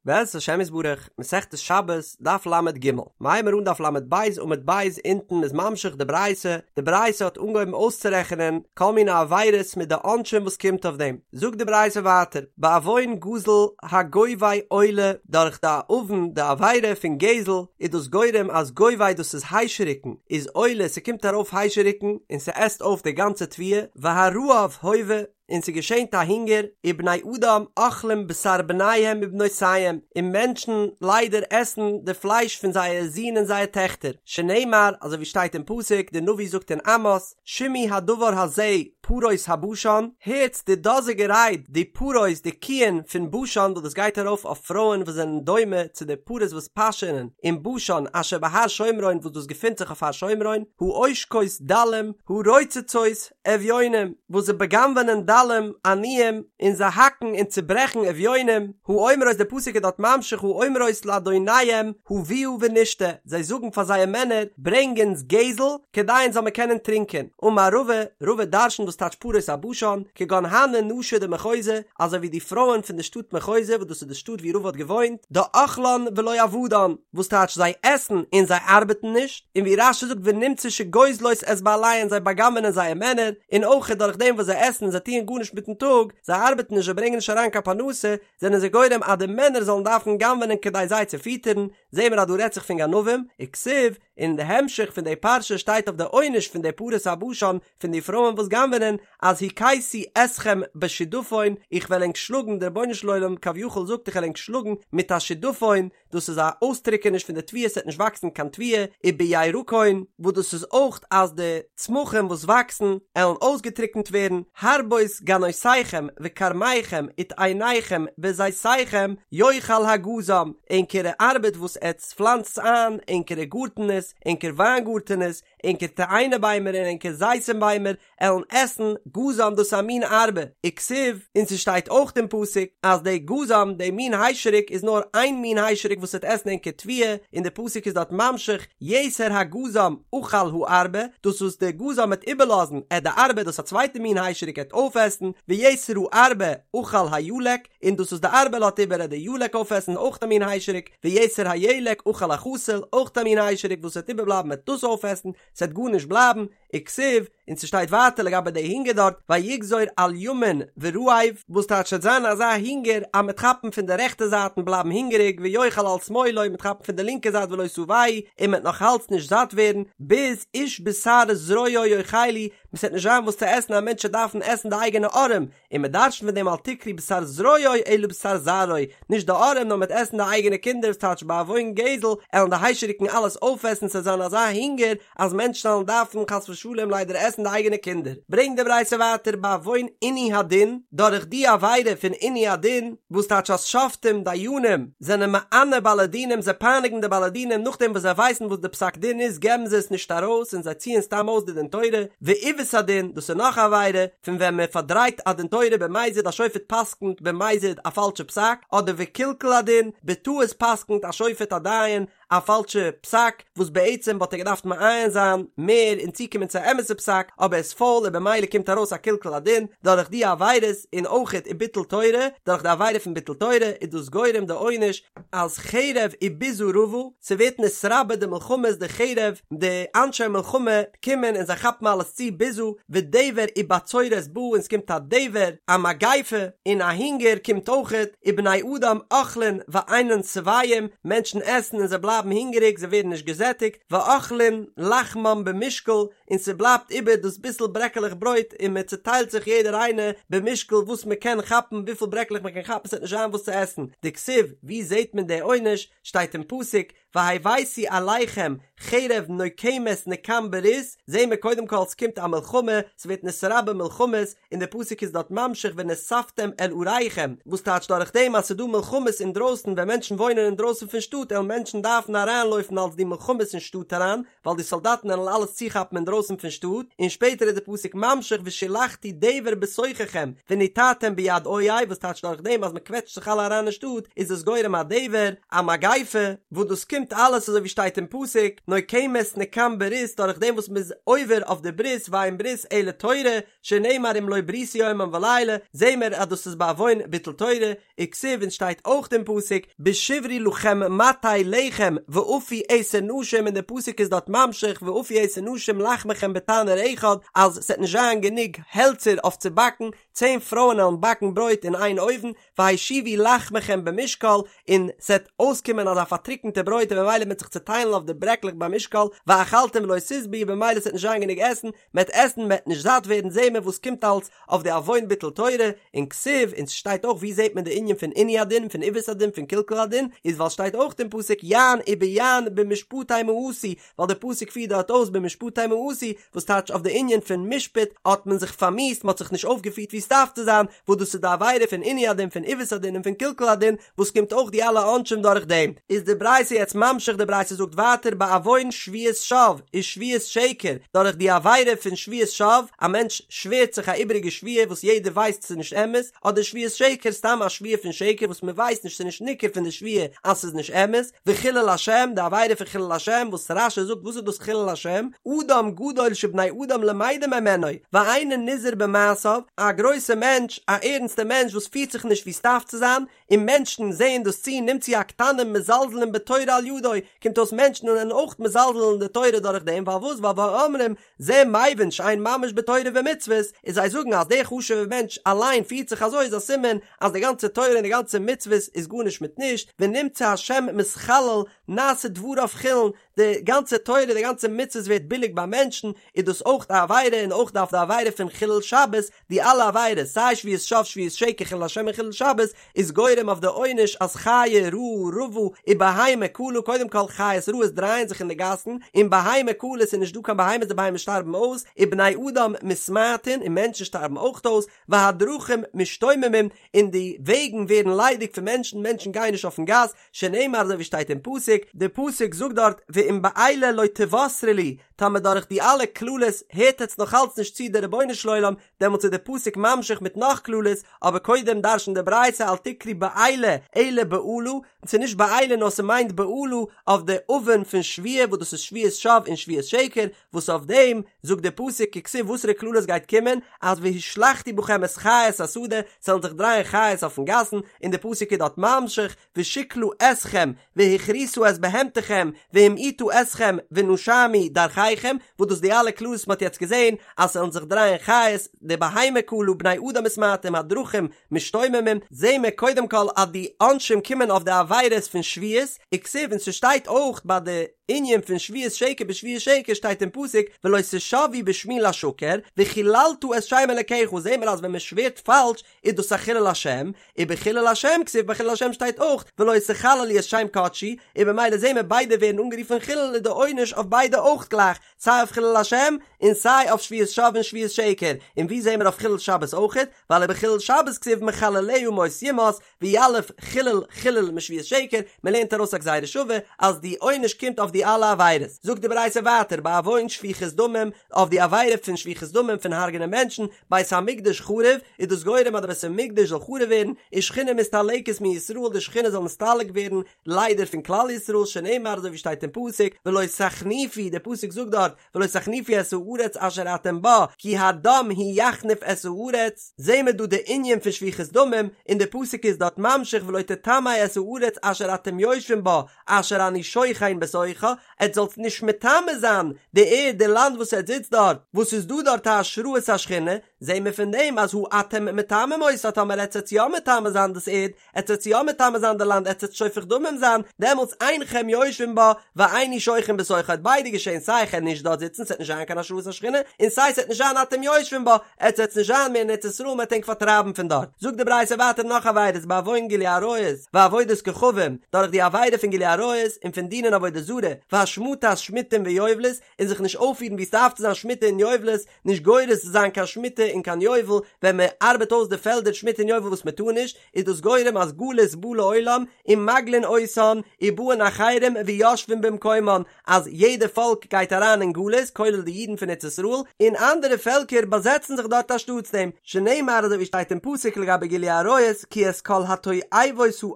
בעזרת השם יתברך, מסכת שבת, דף ל"ג, מ'הייבן מיר אן דף ל"ב עמוד ב' אונטן מ'איז ממשיך די ברייתא, די ברייתא האט אנגעהויבן אויסצורעכענען כל מיני עבירות מיט די עונשים וואס קומט אויף דעם, זאגט די ברייתא ווייטער, בעוון גזל הגובה עולה, דורך די עוון די עבירה פון גזל איז דאס גורם אז גובה דאס איז היישעריקן איז עולה ס'קומט ארויף היישעריקן און ס'עסט אויף די גאנצע תבואה, והרעב הווה, און ס'געשענט א הונגער, ובני אדם אוכלים בשר בניהם ובנותיהם, און מענטשן ליידער עסן די פלייש פון זייער זין און זייער טעכטער, שנאמר, אזוי ווי שטייט אין פסוק, די נביא זאגט אין עמוס, שמעו הדבר הזה פרות הבשן, הערטס די דאזיגע רייד, די פרות, די קיען פון בשן, וואס דאס גייט ארויף אויף פרויען וואס זענען דומה צו די פרות וואס פאשענען אין בשן אשר בהר שומרון וואס דאס געפינט זיך אויף הר שומרון, העושקות דלים, הרוצצות, אביונים, וואס זיי בא'גנב'ענען דלים, עניים, און זיי האקן און צוברעכן אביונים, האומרות דער פסוק איז דארט ממשיך האומרות לאדוניהם הביאה ונשתה, זיי זאגן פאר זייער מענער, ברענג אונז גזל, כדי אונז זאל מען קענען טרינקען. אמר רבא, רבא דרשנט וואס טייטש פרות הבשן, כגון הני נשי דמחוזא, אזוי ווי די פרויען פון די שטאט מחוזא, וואס דאס איז די שטאט ווי רבא האט געוואוינט, דאכלן ולא עבדן, וואס טייטש זיי עסן און זיי ארבעטן נישט, און ווי רש"י זאגט ונמצא שגוזלות את בעליהן זיי בא'גנב'ענען זייער מענער, און אויך דורך דעם וואס זיי עסן און זיי טוען גארנישט מיטן טאג, זיי ארבעטן נישט זיי ברענגען נישט אריין קיין פרנסה, זענען זיי גורם אז די מענער זאלן דארפן גנב'ענען כדי זיי צו פיטערן, זעהן מיר אז דא רעדט זיך פון גנבים, וכתיב, און אין די המשך פון די פרשה שטייט אויף די עונש פון די פרות הבשן פון די פרויען וואס גנב'ענען, אז הכיתי אתכם בשדפון, איך וועל ענק שלאגן, דער רבונו של עולם כביכול זאגט איך וועל ענק שלאגן מיט א שדפון, דאס איז א אויסטריקעניש פון די תבואה ס'וועט נישט וואקסן קיין תבואה, ובירקון, וואס דאס איז אויך אז די צמחים וואס וואקסן עלן אויסגעטריקנט ווערן, הרבות גנותיכם וכרמיכם ותאניכם וזיתיכם יאכל הגזם, ענקערע ארבעט וואס עטץ פלאנצטס איין, ענקערע גארטענעס, ענקער וויינגארטענעס, ענקער תאנה ביימער און ענקער זיתים ביימער, עלן עסן, גזם דאס איז א מין ארבה, וכתיב, און ס'שטייט אויך אין פסוק אז די גזם, די מין היישעריק איז נאר איין מין היישעריק וואס וועט עסן ענקער תבואה, און די פסוק איז דארט ממשיך, יתר הגזם אכל הארבה, דאס וואס די גזם וועט איבערלאזן, עט די ארבה, דאס א צווייטע מין היישעריק עט אויפעסן, ויתר הארבה אכל הילק, און דאס וואס די ארבה לאזט איבער עט די ילק אויפעסן, אויך א מין היישעריק, ויתר הילק אכל החסיל, אויך א מין היישעריק וואס וועט איבערבלייבן עט דאס אויפעסן, ס'עט גארנישט בלייבן, וכתיב, און ס'שטייט ווייטער לגבי די הונגער דארט, ויגזור על ימין ורעב, וואס טייטש ס'וועט זיין אזא הונגער אז מ'עט כאפן פון די רעכטע זייט און בלייבן הונגעריג, ויאכל על שמאלו, מ'עט כאפן פון די לינקע זייט ולא שבעו, און מ'עט נאך אלץ נישט זאט ווערן, ביז איש בשר זרועו יאכלו, ס'עט נישט זיין וואס צו עסן א מענטש וועט דארפן עסן די אייגענע ארעם, און מען דרש'נט פון דעם אל תקרי בשר זרועו אלא בשר זרעו, נישט די ארעם נאר מ'עט עסן די אייגענע קינדער וואס טייטש בעוון גזל עלן די היישעריקן אלעס אויפעסן ס'עט זיין אזא הונגער אז מענטשן עלן דארפן חס ושלום ליידער עסן די אייגענע קינדער. ברענגט די ברייתא ווייטער בעוון עינוי הדין, דורך די עבירה פון עינוי הדין, וואס טייטש אז שופטים, דיינים, זענען מענה בעלי דינים זיי פייניגן די בעלי דינים נאכדעם וואס זיי ווייסן וואס די פסק דין איז געבן זיי עס נישט ארויס און זיי ציען סתם אויס די דין תורה, ועיוות הדין, דאס איז נאך א עבירה, פון ווען מען פארדרייט א דין תורה במזיד א שופט פסק'נט במזיד א פאלשע פסק, אדער וקלקול הדין, בטעות פסק'נט א שופט א דיין א פאלשע פסק, וואס בעצם וואלט ער געדארפט מעיין זיין מער און צוקומען צו א אמת'ע פסק, אבער ער איז פויל און במילא קומט ארויס א קלקול הדין דורך די עבירות, און אויכעט וביטול תורה, דורך די עבירה פון ביטול תורה איז דאס גורם די עונש אז חרב וביזה רבה, ס'ווערט נתרבה די מלחמות די חרב, די אנשי מלחמה קומען און זיי כאפן אלעס צו ביזה, ודבר ובצורת בא און ס'קומט א דבר, א מגיפה, און א הונגער קומט אויכעט, ובני אדם אוכלין ואינן שבעים, מענטשן עסן און זיי בלייבן הונגעריג זיי ווערן נישט געזעטיגט, ואוכלין לחמם במשקל, און ס'בלייבט איבער דאס ביסל ברעקעלעך ברויט און מען צוטיילט זיך יעדער איינער במשקל וואס מען קען כאפן וויפיל ברעקלעך מען קען כאפן ס'וועט נישט זיין וואס צו עסן, דכתיב, ווי זעט מען די עונש? שטייט אין פסוק, והבאתי עליכם חרב נוקמת נקם ברית, זעהן מיר קודם כל ס'קומט א מלחמה, ס'ווערט נתרבה מלחמות, און די פסוק איז דארט ממשיך ונאספתם אל עריכם, וואס טייטש דורך דעם אז ס'דא מלחמות אינדרויסן ווען מענטשן וואוינען אינדרויסן פון שטאט עלן מענטשן דארפן אריינלויפן אלס די מלחמות אין שטאט אריין, ווייל די סאלדאטן עלן אלעס צוכאפן אינדרויסן פון שטאט, און שפעטער איז די פסוק ממשיך ושלחתי דבר בתוככם ונתתם ביד אויב, וואס טייטש דורך דעם אז מ'קוועטשט זיך אלע אריין אין שטאט איז עס גורם א דבר, א מגיפה, וואס דאס קומט. קומט אלעס אזוי ווי שטייט אין פסוק, נוקמת נקם ברית דורך דעם וואס מ'איז עובר אויף די ברית ואין ברית אלא תורה, שנאמר אם לא בריתי יומם ולילה, זעהן מיר אז דאס איז בעוון ביטול תורה, וכתיב און שטייט אויך אין פסוק, בשברי לכם מטה לחם ואפו עשר נשים און די פסוק איז דארט ממשיך ואפו עשר נשים לחמכם בתנור אחד אז ס'עט נישט זיין גענוג העלצער אויף צו באקן, צען פרויען עלן באקן ברויט אין איין אויוון, והשיבו לחמכם במשקל, און ס'עט אויסקומען אזא פארטריקענטע ברויט און ממילא מ'עט זיך צוטיילן אויף די ברעקלעך במשקל, ואכלתם ולא תשבעו במילא ס'עט נישט זיין גענוג עסן, מ'עט עסן מ'עט נישט זאט ווערן זעהן מיר וואס קומט אלס אויף די עוון ביטול תורה, און כתיב, און ס'שטייט אויך ווי זעהט מען די ענין פון עינוי הדין, פון עיוות הדין, פון קלקול הדין, איז ווייל שטייט אויך אין פסוק יען וביען במשפטי מאסו, ווייל די פסוק פירט דארט אויס במשפטי מאסו, וואס טייטש אויף די ענין פון משפט האט מען זיך פארמיאוסט, מ'האט זיך נישט אויפגעפירט ווי ס'דארף צו זיין, וואס דאס איז די עבירה פון עינוי הדין, פון עיוות הדין און פון קלקול הדין, וואס קומט אויך די אלע עונשים דורך דעם. איז די ברייתא יעצט ממשיך, די ברייתא זאגט ווייטער בעוון שבועת שוא ושבועת שקר, דורך די עבירה פון שבועת שוא, א מענטש שווערט זיך א איבעריגע שבועה וואס יעדער ווייסט ס'איז נישט אמת, אדער שבועת שקר סתם א שבועה פון שקר וואס מ'ווייסט נישט ס'איז נישט ניכר פון די שבועה אז ס'איז נישט אמת, וחילול השם, די עבירה פון חילול השם, וואס רש"י זאגט וואס איז דאס חילול השם, אדם גדול שבני אדם למדים ממנו, ואינו נזהר במעשיו, א גרויסע מענטש, א ערנסטע מענטש וואס פירט זיך נישט ווי ס'דארף צו זיין, און מענטשן זעען דאס צו, נמצאו הקטנים מזלזלין בתורה על ידו, קומט אויס מענטשן זענען אויך מזלזל אין די תורה דורך דעם, ווייל וואס, ווייל ואומרים, זה מבין שאין ממש בתורה ומצוות, און זיי זאגן אז דער חשוב'ער מענטש אליין פירט זיך אזוי איז א סימן אז די גאנצע תורה און די גאנצע מצוות איז גארנישט מיט נישט, ונמצא השם מתחלל נעשה דבריו חולין, די גאנצע תורה די גאנצע מצוות ווערט ביליג ביי מענטשן, איז דאס אויך א עבירה און אויך אויף די עבירה פון חילול שבת, די אלע עבירות, סיי שבועת שוא שבועת שקר חילול השם און חילול שבת, איז גורם אויף די עונש אז חיה רעה רבה ובהמה כלה, קודם כל חיות רעות דרייען זיך אין די גאסן, און בהמה כלה ס'איז נישט דא קיין בהמות די בהמות שטארבן אויס, ובני אדם מתמעטין און מענטשן שטארבן אויך אויס, והדרכים משתוממים און די וועגן ווערן ליידיג פון מענטשן, מענטשן גייען נישט אויפן גאס, שנאמר אזוי ווי שטייט אין פסוק, די פסוק זאגט דארט ואם באלה לא תוסרו לי, טאמער דורך די אלע קללות הערט עטץ נאך אלץ נישט צו די רבונו של עולם, דעמאלטס איז די פסוק ממשיך מיט נאך קללות, אבער קודם דרש'נט די ברייתא אל תקרי באלה אלא באלה, ס'איז נישט באלה נאר ס'מיינט באלה אויף די עוון פון שבועה וואס דאס איז שבועת שוא און שבועת שקר, וואס אויף דעם זאגט די פסוק כתיב וואסערע קללות גייט קומען, אז והשלחתי בכם את חית השדה, ס'וועלן זיך דרייען חיות אויפן גאסן, און די פסוק איז דארט ממשיך, ושכלה אתכם, והכריתה את בהמתכם, והמעיטה אתכם, ונשמו דרכיכם, וואס דאס די אלע קללות מ'האט יעצט געזען, אז ס'וועלן זיך דרייען חיות, די בהמה כלה, בני אדם מתמעטים, הדרכים משתוממים, זעהן מיר קודם כל אז די עונשים קומען אויף די עבירות פון שבועות, וכתיב און ס'שטייט אויך ביי די ענין פון שבועת שקר בשבועת שקר שטייט אין פסוק ולא תשבעו בשמי לשקר וחללת את שם אלקיך זעהן מיר אז ווען מ'שווערט פאלש איז דאס א חילול השם, ובחילול השם כתיב ביי חילול השם שטייט אויך ולא תחללו את שם קדשי, און במילא זעהן מיר ביידע ווערן אנגערופן חילול איז די עונש אויף ביידע אויך גלייך, סיי אויף חילול השם און סיי אויף שבועת שוא און שבועת שקר, און ווי זעהן מיר אויף חילול שבת אויכעט, ווייל ובחילול שבת כתיב מחלליה מות יומת, ויליף חילול חילול משבועת שקר, מען לערנט ארויס א גזירה שווה אז די עונש קומט אויף די אלע עבירות, זאגט די ברייתא ווייטער בעוון שפיכות דמים, אויף די עבירה פון שפיכות דמים פון הרג'נען מענטשן, בית המקדש חרב, איז דאס גורם אז די בית המקדש זאל חרוב ווערן, ושכינה מסתלקת מישראל די שכינה זאל נסתלק ווערן ליידער פון כלל ישראל שנאמר אזוי ווי שטייט אין פסוק ולא תחניפו די פסוק זאגט דארט ולא תחניפו את הארץ אשר אתם בה כי הדם הוא יחניף את הארץ, זעהן מיר דא די ענין פון שפיכות דמים, און די פסוק איז דארט ממשיך ולא תטמא את הארץ אשר אתם יושבים בה אשר אני שוכן בתוכה, עטס זאלטס נישט מטמא זיין די ערד די לאנד וואס עטס זיצט דארט, וואס איז דא דארט א השראת השכינה, זעהן מיר פון דעם אז הא אתם מטמאים אותה טאמער עטס עטס יא מטמא זיין דאס ערד, עטס עטס יא מטמא זיין די לאנד עטס עטס שופך דמים זיין, דעמאלטס אינכם יושבים בה ואיני שוכן בתוכה וועט ביידע געשען סיי איך וועל נישט דארט זיצן ס'וועט נישט זיין קיין השראת השכינה און סיי ס'וועט נישט זיין אתם יושבים בה עטס עטס נישט זיין מער אין ארץ ישראל מ'וועט ענק פארטרייבן פון דארט. זאגט די ברייתא ווייטער נאך עבירות בעוון גילוי עריות ועבודת כוכבים דורך די עבירה פון גילוי עריות און פון דינען עבודה זרה והשמטת שמיטים ויובלות און זיך נישט אויפפירן ווי ס'דארף צו זיין שמיטה און יובלות נישט גורס זיין קיין שמיטה. און קיין יובל, ווען מען ארבעט אויס די פעלדער שמיטה און יובל וואס מען טאר נישט, איז דאס גורם אז גלות בא לעולם ומגלין אותן ובאין אחרים ויושבין במקומן, אז יעדע פאלק גייט אריין אין גלות כולל די אידן פון ארץ ישראל, און אנדערע פעלקער באזעצן זיך דארט אנשטאטס דעם, שנאמר אזוי ווי שטייט אין פסוק לגבי גילוי עריות כי את כל התועבות האל עשו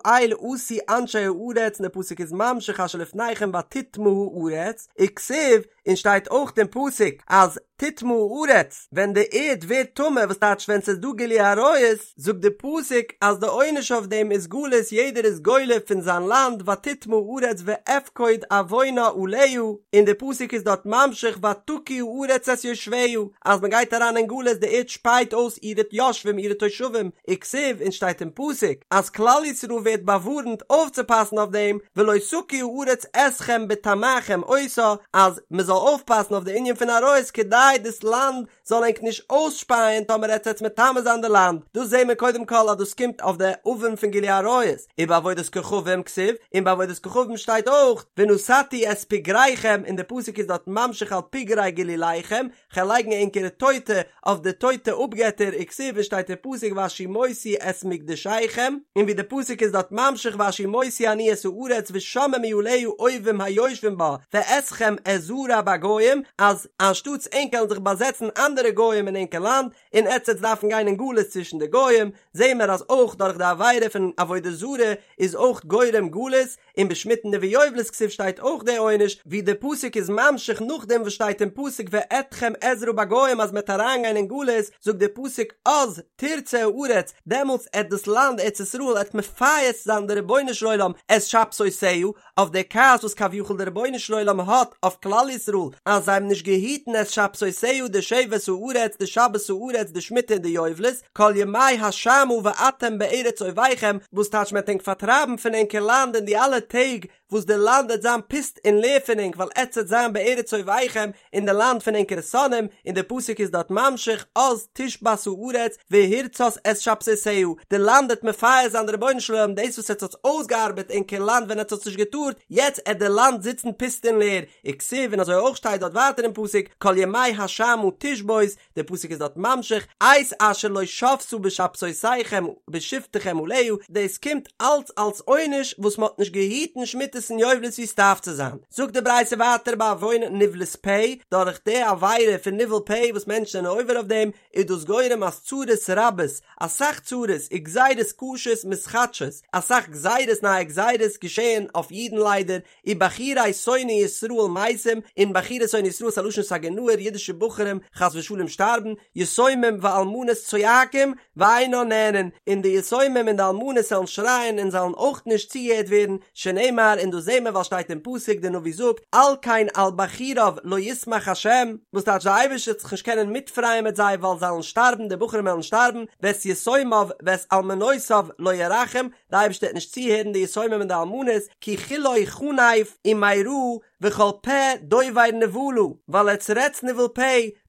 אנשי הארץ און די פסוק איז ממשיך אשר לפניכם ותטמא הארץ, וכתיב, און שטייט אויך אין פסוק אז תטמא הארץ, ווען די ערד ווערט טמא, וואס טייטש ווען ס'איז דא גילוי עריות, זאגט די פסוק אז די עונש אויף דעם איז גלות יעדער איז גולה פון זיין לאנד ותטמא הארץ ואפקוד עוונה עליה, און די פסוק איז דארט ממשיך ותקיא הארץ את יושביה, אז מען גייט אריין אין גלות די ערד שפייט אויס אירע יושבים אירע תושבים, וכתיב און שטייט אין פסוק אז כלל ישראל ווערט באווארנט אויפצופאסן אויף דעם ולא תקיא הארץ אתכם בטמאכם אותה אז מען זאל אויפפאסן אויף די ענין פון עריות כדי דאס לאנד זאל ענק נישט אויסשפייען טאמער עטס עטס מטמא זיין די לאנד, דאס זעהן מיר קודם כל אז דאס קומט אויף די עוון פון גילוי עריות, ובעבודת כוכבים כתיב, און ביי עבודת כוכבים שטייט אויך ונתתי את פגריכם און די פסוק איז דארט ממשיך על פגרי גלוליכם, כ'על לייגן ענקערע טויטע אויף די טויטע אפגעטער וכתיב און שטייט אין פסוק והשמותי את מקדשיכם, און ווי די פסוק איז דארט ממשיך והשמותי אני את הארץ ושממו עליה אויבים היושבים בה ואתכם אזרע בגוים, אז אנשטאטס ענק עלן זיך באזעצן אנדערע גוים אין ענקער לאנד, און עטץ עטס דארפן גיין אין גלות צווישן די גוים, זעהן מיר אז אויך דורך די עבירה פון עבודה זרה איז אויך גורם גלות, און בשמיטה וביובלות כתיב שטייט אויך די עונש, ווי די פסוק איז ממשיך נאכדעם וואס שטייט אין פסוק ואתכם אזרע בגוים אז מ'עט אריינגיין אין גלות, זאגט די פסוק אז תרצה הארץ, דעמאלטס עט דאס לאנד ארץ ישראל עט מפייס זיין די רבונו של עולם את שבתותיה, אויף די כעס וואס כביכול די רבונו של עולם האט אויף כלל ישראל אז זיי האבן נישט געהיטן את שבתותיה די שבת הארץ די שבת הארץ די שמיטה און די יובלות, כל ימי השמה ואתם בארץ אויביכם, וואס טייטש מען וועט ענק פארטרייבן פון ענקער לאנד אין די אלע טעג וואס די לאנד וועט זיין פוסט און לער פון ענק ווייל עטץ וועט זיין בארץ אויביכם אין די לאנד פון ענקערע שונאים, און די פסוק איז דארט ממשיך אז תשבת הארץ והרצת את שבתותיה, די לאנד וועט מפייס זיין די רבונו של עולם דאס וואס עטץ האטס אויסגעארבעט ענקער לאנד ווען עטץ האטס נישט געטארט, יעצט עט די לאנד זיצן פוסט און לער, וכתיב און אזוי אויך שטייט דארט ווייטער אין פסוק כל ימי השמה תשבות, דער פסוק איז דארט ממשיך, את אשר לא שבתה בשבתותיכם בשבתכם עליה, דאס קומט אלץ אלס עונש וואס מען האט נישט געהיטן שמיטות און יובלות ווי עס דארף צו זיין. זאגט די ברייתא ווייטער בעוון נבלת פה, דורך די עבירה פון ניבול פה וואס מענטשן זענען עובר אויף דעם, איז דאס גורם אז צרות רבות, אסאך צרות, וגזירות קשות מתחדשות, אסאך גזירות נייע גזירות געשעען אויף אידן ליידער, ובחורי שונאי ישראל מתים, און בחורי שונאי ישראל איז א לשון סגי נהור, אידישע בחורים חס ושלום שטארבן, יתומים ואלמנות צועקים ואינן נענין, און די יתומים און די אלמנות זאלן שרייען און זאלן אויך נישט צוגעהערט ווערן, שנאמר, און דאס זעהן מיר ווייל שטייט אין פסוק, די נביא זאגט, על כן על בחוריו לא ישמח השם, וואס טייטש די אייבערשטער וועט זיך נישט קענען מיטפרייען מיט זיי ווייל זיי וועלן שטארבן, די בחורים וועלן שטארבן, ואת יתומיו ואת אלמנותיו לא ירחם, די אייבערשטער וועט נישט צוהערן די יתומים און די אלמנות, כי כלו חנף ומרע וכל פה דובר נבלה, ווייל עטס רעדטס ניבול פה,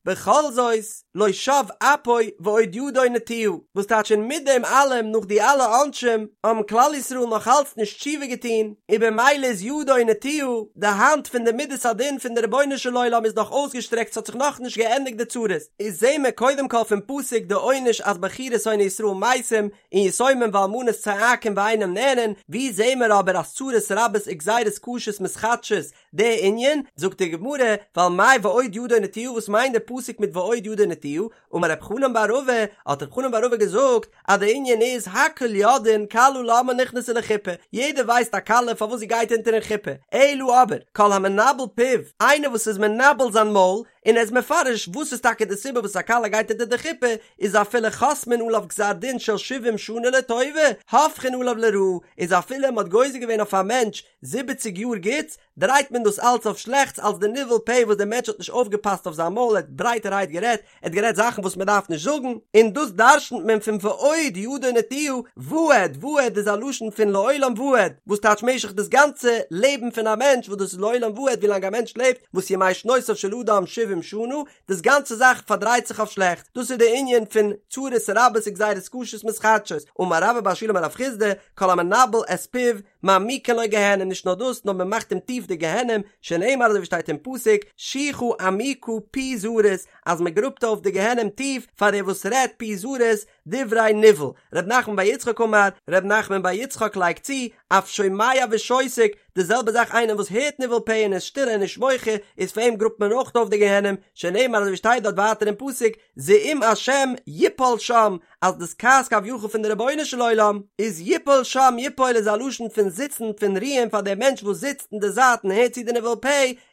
בכל זאת לא שב אפו ועוד ידו נטויה, וואס טייטש און מיט דעם אלעם נאך די אלע עונשים האבן כלל ישראל נאך אלץ נישט תשובה געטון, און במילא איז ידו נטויה, די האנט פון די מידת הדין פון די רבונו של עולם איז נאך אויסגעשטרעקט ס'האט זיך נאכנישט געענדיגט די צרות, איז זעהן מיר קודם כל פון פסוק די עונש אז בחורי שונאי ישראל מתים, און יתומים ואלמנות צועקים ואינם נענין, ווי זעהן מיר אבער אז צרות רבות וגזירות קשות מתחדשות די ענין, זאגט די גמרא, ווייל מאי ועוד ידו נטויה וואס מיינט די פסוק מיט ועוד ידו נטויה, אמר רב חנן בר רבא, האט רב חנן בר רבא געזאגט אז די ענין איז הכל יודעין כלה למה נכנסה לחופה, יעדער ווייסט א כלה פארוואס זי גייט אונטערן חופה, אלא אבער כל המנבל פיו, איינער וואס איז מנבל זיין מויל, און ער איז מפרש וואס איז טאקע די סיבה וואס א כלה גייט אונטער די חופה, איז אפילו חותמין עליו גזר דין של שבעים שנה לטובה, הופכין עליו לרעה, איז אפילו מען האט גוזר געווען אויף א מענטש זיבעציג יאר גוטס, דרייט מען דאס אלץ אויף שלעכטס אלס די ניבול פה וואס דער מענטש האט נישט אויפגעפאסט אויף זיין מויל ער האט ברייטערהייט גערעדט, ער האט גערעדט זאכן וואס מען דארף נישט זאגן, און דאס דרשנ'ט מען פון ועוד ידו נטויה, ועד, ועד איז א לשון פון לעולם ועד, וואס טייטש משך דאס גאנצע לעבן פון א מענטש וואס דאס איז לעולם ועד ווילאנג א מענטש לעבט, וואס ימי שנותיו של אדם שבעים שנה, דאס גאנצע זאך פארדרייט זיך אויף שלעכט, דאס איז די ענין פון צרות רבות וגזירות קשות מתחדשות, אמר רבה בר שילא אמר רב חסדא, כל המנבל את פיו. מעמיקין לו גיהנום, נישט נאר דאס, נאר מען מאכט אים טיף די גיהנום, שנאמר אזוי ווי שטייט אין פסוק, שוחה עמוקה פי זרות, אז מען גראבט אויף די גיהנום טיף פאר דער וואס רעדט פי זרות, דברי ניבול, ר' נחמן בר יצחק אמר, ר' נחמן בר יצחק לייגט צו, אף שומע ושותק, די זעלבע זאך איינער וואס הערט ניבול פה און איז שטיל און נישט מוחה, איז פאר אים גראבט מען אויך אויף די גיהנום, שנאמר אזוי ווי שטייט דארט ווייטער אין פסוק, זעום השם יפול שם, אז דאס כעס כביכול פון די רבונו של עולם, איז יפול שם, יפול איז א לשון פון זיצן, פון רוען פאר דער מענטש וואס זיצט אין די זייט און הערט צו די ניבול פה,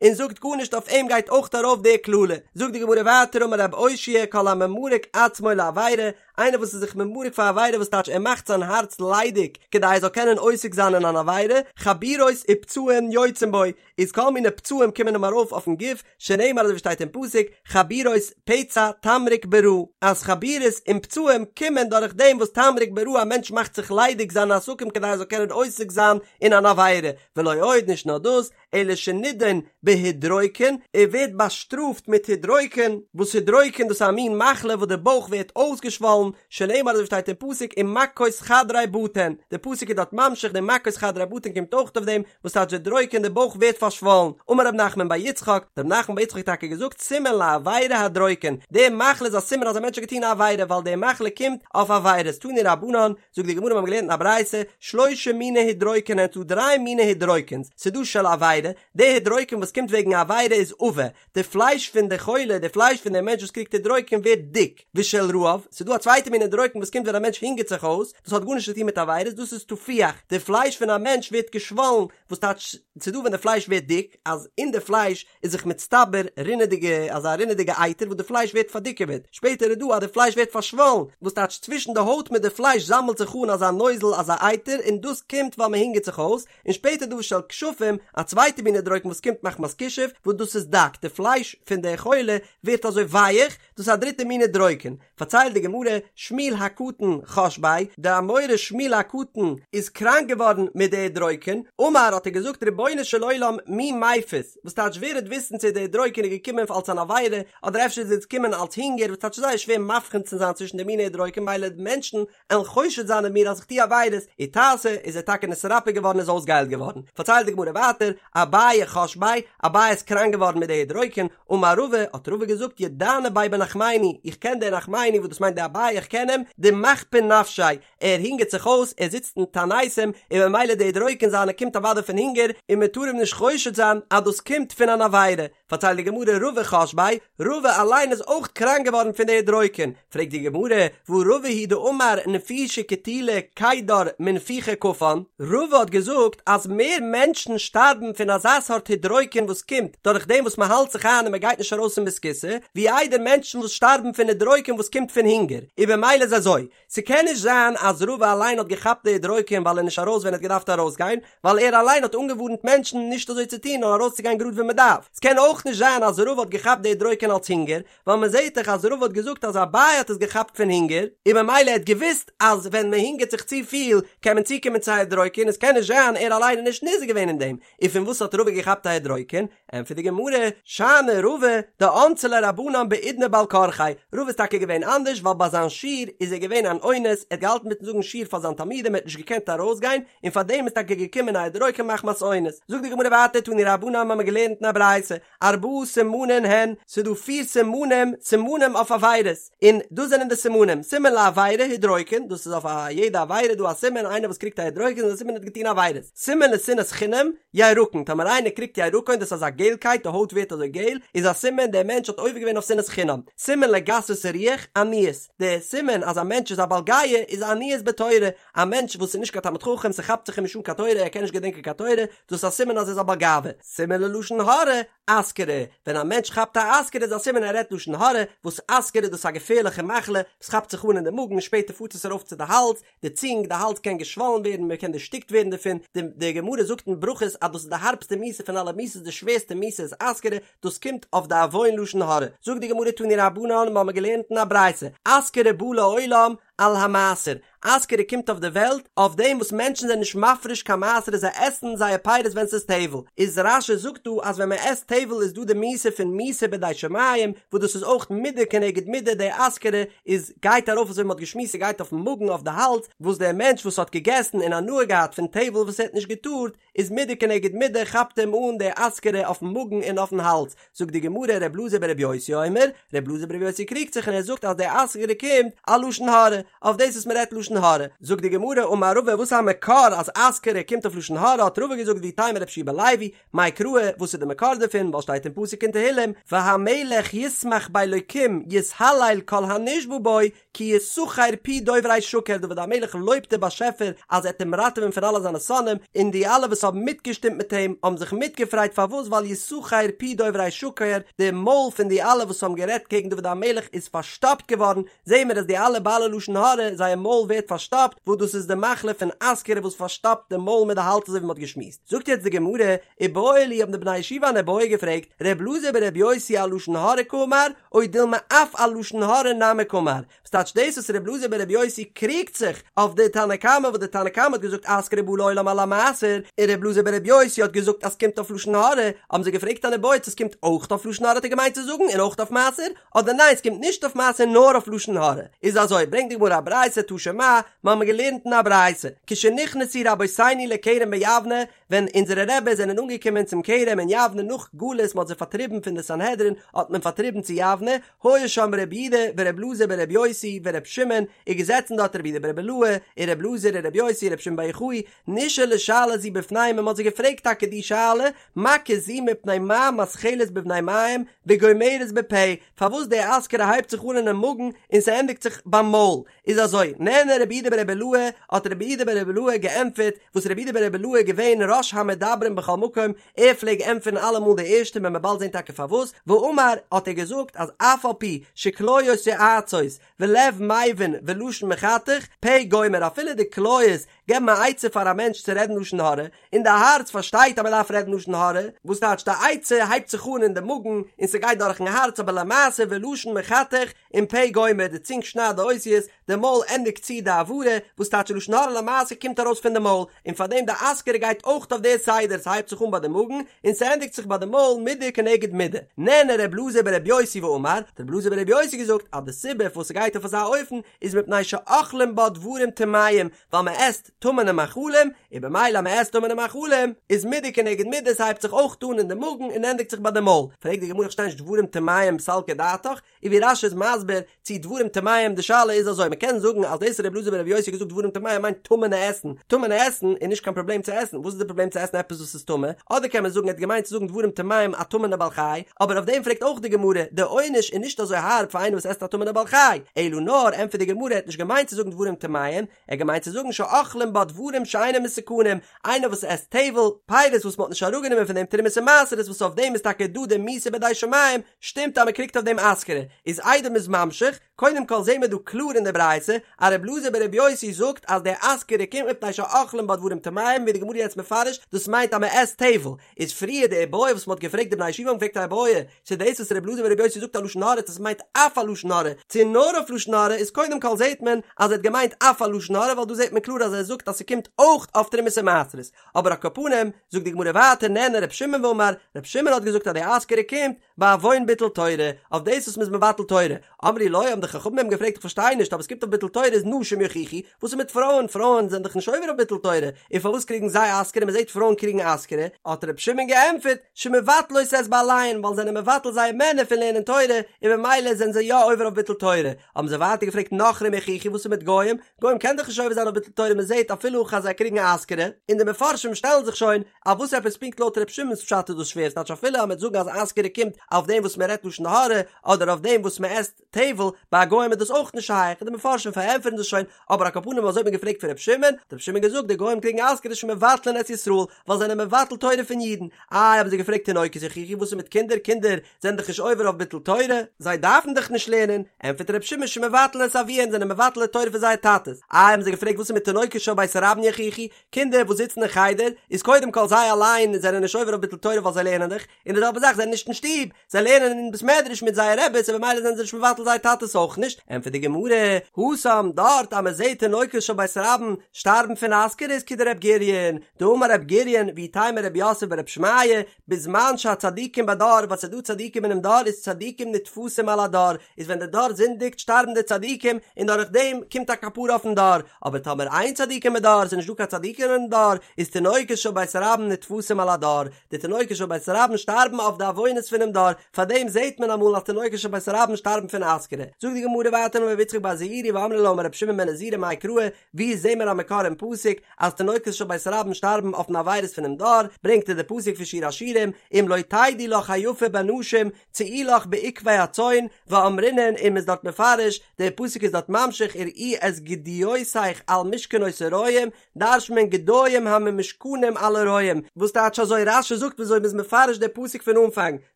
און זאגט גארנישט אויף אים גייט אויך ארויף די קללה. זאגט די גמרא ווייטער אמר רב אושעיא כל הממרק עצמו לעבירה, איינער וואס איז זיך ממרק פאר עבירה וואס טייטש ער מאכט זיין הארץ ליידיג כדי ער זאל קענען עוסק זיין אין אן עבירה, חבורות ופצעים יוצאים בו, איז כל מיני פצעים קומען אים ארויף אויפן גוף, שנאמר אזוי ווי שטייט אין פסוק, חבורות פצע תמרוק ברע, אז חבורות און פצעים קומען דורך דעם וואס תמרוק ברע א מענטש מאכט זיך ליידיג זיינע עסקים כדי ער זאל קענען עוסק זיין אין אן עבירה, ולא עוד נישט נאר דאס, אלא שנידון בהידרוקן, ער ווערט באשטראפט מיט הידרוקן, וואס הידרוקן דאס איז א מין מחלה וואס די בויך ווערט אויסגעשוואלן, שנאמר אזוי ווי שטייט אין פסוק ומכות חדרי בטן, די פסוק איז דארט ממשיך די מכות חדרי בטן קומט אויך אויף דעם, וואס טייטש הידרוקן די בויך ווערט פארשוואלן, אמר רב נחמן בר יצחק, רב נחמן בר יצחק האט טאקע געזאגט סימן לעבירה הדרוקן, די מחלה איז א סימן אז א מענטש האט געטון א עבירה ווייל די מחלה קומט אויף עבירות, תנו רבנן, זאגט די גמרא מיר האבן געלערנט אין א ברייתא, שלושה מיני הידרוקן הן ס'דא דריי מיני הידרוקנס, ס'דא של עבירה, די הידרוקן וואס קומט וועגן א עבירה איז עבה, די פלייש פון די חולה, די פלייש פון די מענטש וואס קריגט הידרוקן ווערט דיק, ושל רעב, ס'דא א צווייטע מין הידרוקן וואס קומט ווען א מענטש הונגערט זיך אויס, דאס האט גארנישט צו טון מיט עבירות, דאס איז תפוח, די פלייש פון א מענטש ווערט געשוואלן, וואס טייטש, ס'דא ווען די פלייש ווערט דיק, אז אין די פלייש איז זיך מצטבר רינעדיגע, אזא רינעדיגע אייטער וואס די פלייש ווערט פארדיקעוועט, שפעטער איז דא אז די פלייש ווערט פארשוואלן, וואס טייטש צווישן די הויט מיט די פלייש זאמלט זיך אן אזא נוזל אזא אייטער און דאס קומט ווייל מען הונגערט זיך אויס, און שפעטער דא ושל כשפים, א צווייטע מין הידרוקן וואס קומט מחמת כישוף, וואס דאס איז דק, די פלייש פון די חולה ווערט אזוי ווייעך, דאס איז א דריטע מין הידרוקן. פארציילט די גמרא, שמואל הקטן חש ביה, די אמורא שמואל הקטן איז קראנק געווארן מיט די הידרוקן, אמר האט ער געזאגט רבונו של עולם מי מפיס, וואס טייטש ווער וועט וויסן צו די הידרוקן איז געקומען אלס אן עבירה, אדער אפשר איז עס געקומען אלס הונגער, וואס טייטש זייער שווער מבחין צו זיין צווישן די מיני הידרוקן מילא די מענטשן עלן חושד זיין אין מיר אז איך טו עבירות, איתסי, איז ער טאקע נתרפא געווארן איז אויסגעהיילט געווארן. פארציילט די גמרא ווייטער, אביי חש ביה, אביי איז קראנק געווארן מיט די הידרוקן, אמר רבא, האט רבא געזאגט ידענא ביה בנחמני, איך קען די נחמני וואס דאס מיינט די אביי איך קען אים, דמכפין נפשיה, ער הונגערט זיך אויס, ער זיצט אין תעניתים, און ממילא די הידרוקן זיינע קומט אוודאי פון הונגער, און מען טאר אים נישט חושד זיין אז דאס קומט פון אן עבירה. פארציילט די גמרא רבא חש ביה, רבא אליין איז אויך קראנק געווארן פון די הידרוקן, פרעגט די גמרא, והא רבא הוא דאמר נפישי קטילי קידר מנפיחי כפן, רבא האט געזאגט אז מער מענטשן שטארבן פון אזא סארט הידרוקן וואס קומט דורך דעם וואס מען האלט זיך איין און מען גייט נישט ארויס אין בית הכסא, ווי איידער מענטשן וואס שטארבן פון הידרוקן וואס קומט פון הונגער, און במילא איז אזוי, ס'קען נישט זיין אז רבא אליין האט געכאפט די הידרוקן ווייל ער נישט ארויס ווען ער האט געדארפט ארויסגיין, ווייל ער אליין האט אנגעווארנט מענטשן נישט אזוי צו טון נאר ארויסצוגיין גראד ווען מ'דארף. ס'קען אויך נישט זיין אז רבא האט געכאפט די הידרוקן אלס הונגער, ווייל מ'זעט דאך אז רבא האט געזאגט אז אביי האט עס געכאפט פון הונגער, און ממילא ער האט געוואוסט אז ווען מ'הונגערט זיך צופיל קען מען צוקומען צו א הידרוקן און ס'קען נישט זיין ער אליין איז נישט נזהר געווען אין דעם, און פון וואס האט רבא געכאפט א הידרוקן? ענטפערט די גמרא, שאני רבא, דאנסי ליה רבנן בעידנא בעל כרחיה, רבא איז טאקע געווען אנדערש ווייל ביי זיין שיעור איז ער געווען אן אונס, ער האט געהאלטן מיטן זאגן שיעור פאר זיין תלמידים ער האט נישט געקענט ארויסגיין, און פאר דעם איז טאקע געקומען א הידרוקן מחמת אונס. זאגט די גמרא ווייטער תנו רבנן האבן מיר געלערנט אין א ברייתא, ארבעה סימנין הן, ס'איז דא פיר סימנים, סימנים אויף עבירות, און דאס זענען די סימנים, סימן לעבירה הידרוקן, דאס איז אויף א יעדע עבירה דא א סימן, איינער וואס קריגט א הידרוקן איז א סימן ער האט געטון עבירות, סימן לשנאת חינם, ירקון, טאמער איינער קריגט ירקון דאס איז אזא געלקייט די הויט ווערט אזוי געל, איז א סימן דער מענטש האט עובר געווען אויף שנאת חינם, סימן לגסות הרוח, עניות, די סימן אז א מענטש איז א בעל גאוה איז עניות בתורה, א מענטש וואס איז נישט קיין תלמיד חכם ס'כאפט זיך אים נישט אן קיין תורה ער קען נישט געדענקען קיין תורה, דאס איז א סימן אז ער איז א בעל גאווה, סימן ללשון הרע, אסכרה, ווען א מענטש כאפט א אסכרה איז א סימן ער רעדט לשון הרע, וואס אסכרה דאס איז א געפערליכע מחלה וואס כאפט זיך אן אין די מאגן און שפעטער פארט עס ארויף צו די האלז, די צונג, די האלז קען געשוואלן ווערן, מען קען דערשטיקט ווערן דערפון, די די גמרא זאגט אין ברכות אז דאס איז די הארבסטע מיתה פון אלע מיתות, די שווערסטע מיתה איז אסכרה, דאס קומט אויף די עוון לשון הרע. זאגט די גמרא תנו רבנן, מיר האבן געלערנט אין א ברייתא, אסכרה באה לעולם, על המעשר, אסכרה קומט אויף די וועלט אויף דעם וואס מענטשן זענען נישט מפריש קיין מעשר און זיי עסן זייער פירות ווען ס'איז טבל, איז רש"י זאגט דא אז ווען מען עסט טבל איז דא די מיתה פון מיתה בידי שמים, וואס דאס איז אויך מידה כנגד מידה, די אסכרה איז גייט ארויף אזוי ווי מען האט געשמועסט ס'גייט אויפן מאגן אויף די האלז, וואס דער מענטש וואס האט געגעסן און הנאה געהאט פון טבל וואס ער האט נישט געטארט, איז מידה כנגד מידה כאפט אים אן די אסכרה אויפן מאגן און אויפן האלז, זאגט די גמרא ר' אלעזר בר' יוסי אומר, ר' אלעזר בר' יוסי קריגט זיך און ער זאגט אז די אסכרה קומט על לשון הרע, אויף דאס וואס מען רעדט לשון הרע, זאגט די גמרא אמר רבא וואס איז א מקור אז אסכרה קומט אויף לשון הרע האט רבא געזאגט ואיתימא רבי יהושע בן לוי, מאי קרא וואס איז די מקור דערפון ווייל שטייט אין פסוק אין תהילים והמלך ישמח באלוקים יתהלל כל הנשבע בו כי יסכר פי דוברי שקר דוד המלך לויבט דער באשעפער אז ער וועט אים ראטעווען פון אלע זיינע שונאים, און די אלע וואס האבן מיטגעשטימט מיט אים האבן זיך מיטגעפרייט פארוואס ווייל יסכר פי דוברי שקר די מויל פון די אלע וואס האבן גערעדט קעגן דוד המלך איז פארשטאפט געווארן, זעהן מיר אז די אלע בעלי לשון הרע זייער מויל ווערט פארשטאפט וואס דאס איז די מחלה פון אסכרה וואס פארשטאפט די מויל מיט די האלז אזוי ווי מען האט געשמועסט. זאגט יעצט די גמרא, איבעיא להו האבן די בני ישיבה אן איבעיא געפרעגט, ר' אלעזר בר' יוסי על לשון הרע קאמר, או דילמא אף על לשון הרע נמי קאמר, וואס טייטש דאס וואס ר' אלעזר בר' יוסי קריגט זיך אויף די תנא קמא וואס די תנא קמא האט געזאגט אסכרה באה לעולם על המעשר, און ר' אלעזר בר' יוסי האט געזאגט אז ס'קומט אויף לשון הרע, האבן זיי געפרעגט אן איבעיא צו ס'קומט אויך אויף לשון הרע האט ער געמיינט צו זאגן און אויך אויף מעשר, אדער ניין ס'קומט נישט אויף מעשר נאר אויף לשון הרע, איז אזוי ברענגט די גמרא א ברייתא תא שמע, מ'האמיר געלערנט אין א ברייתא, כשנכנסו רבותינו לכרם ביבנה, ווען אונזערע רעבעס זענען אנגעקומען צום כרם אין יבנה נאך גלות מ'האט זיי פארטריבן פון די סנהדרין האט מען פארטריבן צו יבנה, היה שם רבי יהודה ורבי אלעזר ברבי יוסי ורבי שמעון, איז געזעצן דארט רבי יהודה ברבי אילעאי און רבי אלעזר און רבי יוסי און רבי שמעון בר יוחאי, נשאלה שאלה זו בפניהם און מ'האט זיי געפרעגט טאקע די שאלה, מכה זו מפני מה מתחלת בבני מעיים וגומרת בפה, פארוואס די אסכרה הייבט זיך אן אינעם מאגן און ס'ענדיגט זיך ביים מויל, איז אזוי, נענה רבי יהודה ברבי אילעאי, האט רבי יהודה ברבי אילעאי געענטפערט, וואס רבי יהודה ברבי אילעאי איז געווען ראש המדברים בכל מקום, ער פלעג ענטפערן אלעמאל די ערשטע וועט מען באלד זען טאקע פארוואס, ואמר, האט ער געזאגט אז אף על פי שכליות יועצות ולב מבין ולשון מחתך, פה גומר, אפילו די כליות געבן א עצה פאר א מענטש צו רעדן לשון הרע, און די הארץ פארשטייט אז מען דארף רעדן לשון הרע, וואס טייטש די עצה הייבט זיך אן אין די מאגן און ס'גייט דורכן הארץ אבער למעשה ולשון מחתך און פה גומר, די צונג שניידט די אותיות, די מויל ענדיגט צו די הברה, וואס טייטש לשון הרע למעשה קומט ארויס פון די מויל, און פארדעם די אסכרה גייט אויך אויף די סדר, ס'הייבט זיך אן ביי די מאגן און ס'ענדיגט זיך ביי די מויל מידה כנגד מידה. נענה ר' אלעזר בר' יוסי ואמר, האט ר' אלעזר בר' יוסי געזאגט אז די סיבה פארוואס ס'גייט אויף אזא אופן איז מפני שאוכלים בה דברים טמאים, ווייל מען עסט טמא'נע מאכלים, און במילא אז מען עסט טמא'נע מאכלים, איז מידה כנגד מידה, ס'הייבט זיך אויך אן אין די מאגן און ענדיגט זיך ביי די מויל. פרעגט די גמרא איך פארשטיי נישט דברים טמאים סלקא דעתך, און ווי רש"י איז מסביר צו דברים טמאים, די שאלה איז אזוי, מען קען זאגן אז דאס ר' אלעזר בר' יוסי האט געזאגט דברים טמאים מיינט טמא'נע עסן, טמא'נע עסן איז נישט קיין פראבלעם צו עסן, וואס איז די פראבלעם צו עסן עפעס וואס איז טמא, אדער קען מען זאגן ער האט געמיינט צו זאגן דברים טמאים א טמא'נע בעל חי, אבער אויף דעם פרעגט אויך די גמרא, די עונש איז נישט אזוי הארב פאר איינער וואס עסט א טמא'נע בעל חי, אלא נאר, ענטפערט די גמרא, ער האט נישט געמיינט צו זאגן דברים טמאים, ער האט געמיינט צו זאגן שאוכלים בה דברים שאינם מתוקנים, איינער וואס עסט טבל, פירות וואס מען האט נישט אראפגענומען פון דעם תרומות און מעשרות וואס אויף דעם איז טאקע דא די מיתה בידי שמים, שטימט אז מען קריגט אויף דעם אסכרה, איז איידער מ'איז ממשיך, קודם כל זעהן מיר דא קלאר אין די ברייתא אז ר' אלעזר בר' יוסי זאגט אז די אסכרה קומט מפני שאוכלים בה דברים טמאים ווי די גמרא יעצט מפרש דאס מיינט אז מען עסט טבל, איז פריער די איבעיא וואס מען האט געפרעגט די בני ישיבה האבן געפרעגט א איבעיא צו דאס וואס ר' אלעזר בר' יוסי זאגט א לשון הרע צו עס מיינט אף א לשון הרע צו נאר אויף לשון הרע איז קודם כל זעהט מען אז ער האט געמיינט אף א לשון הרע ווייל דא זעהט מען קלאר אז ער זאגט אז ס'קומט אויך אויף תרומות און מעשרות אבער על כל פנים זאגט די גמרא ווייטער נענה ר' שמעון ואמר ר' שמעון האט געזאגט אז די אסכרה קומט בעוון ביטול תורה, אויף דאס וואס מ'איז מבטל תורה. אמרו לו, האבן די חכמים אים געפרעגט איך פארשטיי נישט, אבער עס קומט אויף ביטול תורה איז נשים יוכיחו, וואס איז מיט פרויען, פרויען זענען דאך נישט עובר אויף ביטול תורה, און פארוואס קריגן זיי אסכרה, מ'זעט פרויען קריגן אסכרה, האט ר' שמעון געענטפערט, שמבטלות את בעליהן, ווייל זיי זענען מבטל זייער מענער פון לערנען תורה, און ממילא זענען זיי יא עובר אויף ביטול תורה. האבן זיי ווייטער געפרעגט נכרים יוכיחו וואס איז מיט גוים, גוים קען דאך נישט עובר זיין אויף ביטול תורה מ'זעט אפילו הכי אז זיי קריגן אסכרה, און די מפרשים שטעלן זיך שוין אז וואס עפעס פונקט לויט ר' שמעון'ס פשט איז דאס שווער, ס'טייטש אפילו אז מ'וועט זאגן אז אסכרה קומט אויף דעם וואס מ'רעדט לשון הרע, אדער אויף דעם וואס מ'עסט טבל, ביי גוים איז דאס אויך נישט שייך, און די מפרשים פארענטפערן דאס שוין, אבער על כל פנים אזוי האט מען געפרעגט פון ר' שמעון, האט ר' שמעון געזאגט די גוים קריגן אסכרה שמבטלין את ישראל, ווייל זיי זענען מבטל תורה פון אידן, איי האבן זיי געפרעגט תינוקות יוכיחו וואס איז מיט קינדער, קינדער זענען דאך נישט עובר אויף ביטול תורה, זיי דארפן דאך נישט לערנען, ענטפערט ר' שמעון שמבטלין את אביהן זענען מבטל די תורה פון זייער טאטעס, איי האבן זיי געפרעגט וואס איז מיט תינוקות של. של בית רבן יוכיחו, קינדער וואס זיצן אין חדר, איז קודם כל זיי אליין זענען נישט עובר אויף ביטול תורה ווייל זיי לערנען דאך, און די זעלבע זאך זיי זענען נישט אין שטוב, זיי לערנען אין בית מדרש מיט זייער רעבעס און במילא זענען זיי נישט מבטל זייער טאטעס אויך נישט, ענטפערט די גמרא, התם, דארט אז מען זעט תינוקות של בית רבן שטארבן פון אסכרה איז כדר' גוריון, דאמר ר' גוריון ואיתימא ר' יוסף בר' שמעיה, בזמן שהצדיקים בדור ווייל ס'איז דא צדיקים אינעם דור איז צדיקים נתפסים על הדור, איז ווען די דור זינדיגט שטארבן די צדיקים און דורך דעם קומט א כפרה אויפן דור, אבער טאמער אין צדיקים בדור ס'איז נישט דא קיין צדיקים אינעם דור איז תינוקות של בית רבן נתפסים על הדור, די תינוקות של בית רבן שטארבן אויף די עוונות פונעם דור, פארדעם זעט מען אמאל אז תינוקות של בית רבן שטארבן פון אסכרה. זאגט די גמרא ווייטער אמר רבי יצחק בר זעירי ואמרי לה אמר רבי שמעון בן נזירא מאי קרא, ווי זעהן מיר א מקור אין פסוק אז תינוקות של בית רבן שטארבן אויפן עבירות פונעם דור, ברענגט ער די פסוק פון שיר השירים, אם לא תדעי לך היפה בנשים צאי לך בעקבי הצאן, ואמרינן און מ'איז דארט מפרש, דער פסוק איז דארט ממשיך ורעי את גדיותיך על משכנות הרועים, דרש'נט מען גדיים הממושכנים על הרועים, וואס טייטש אזוי רש"י זאגט וויאזוי מ'איז מפרש די פסוק פון אנפאנג,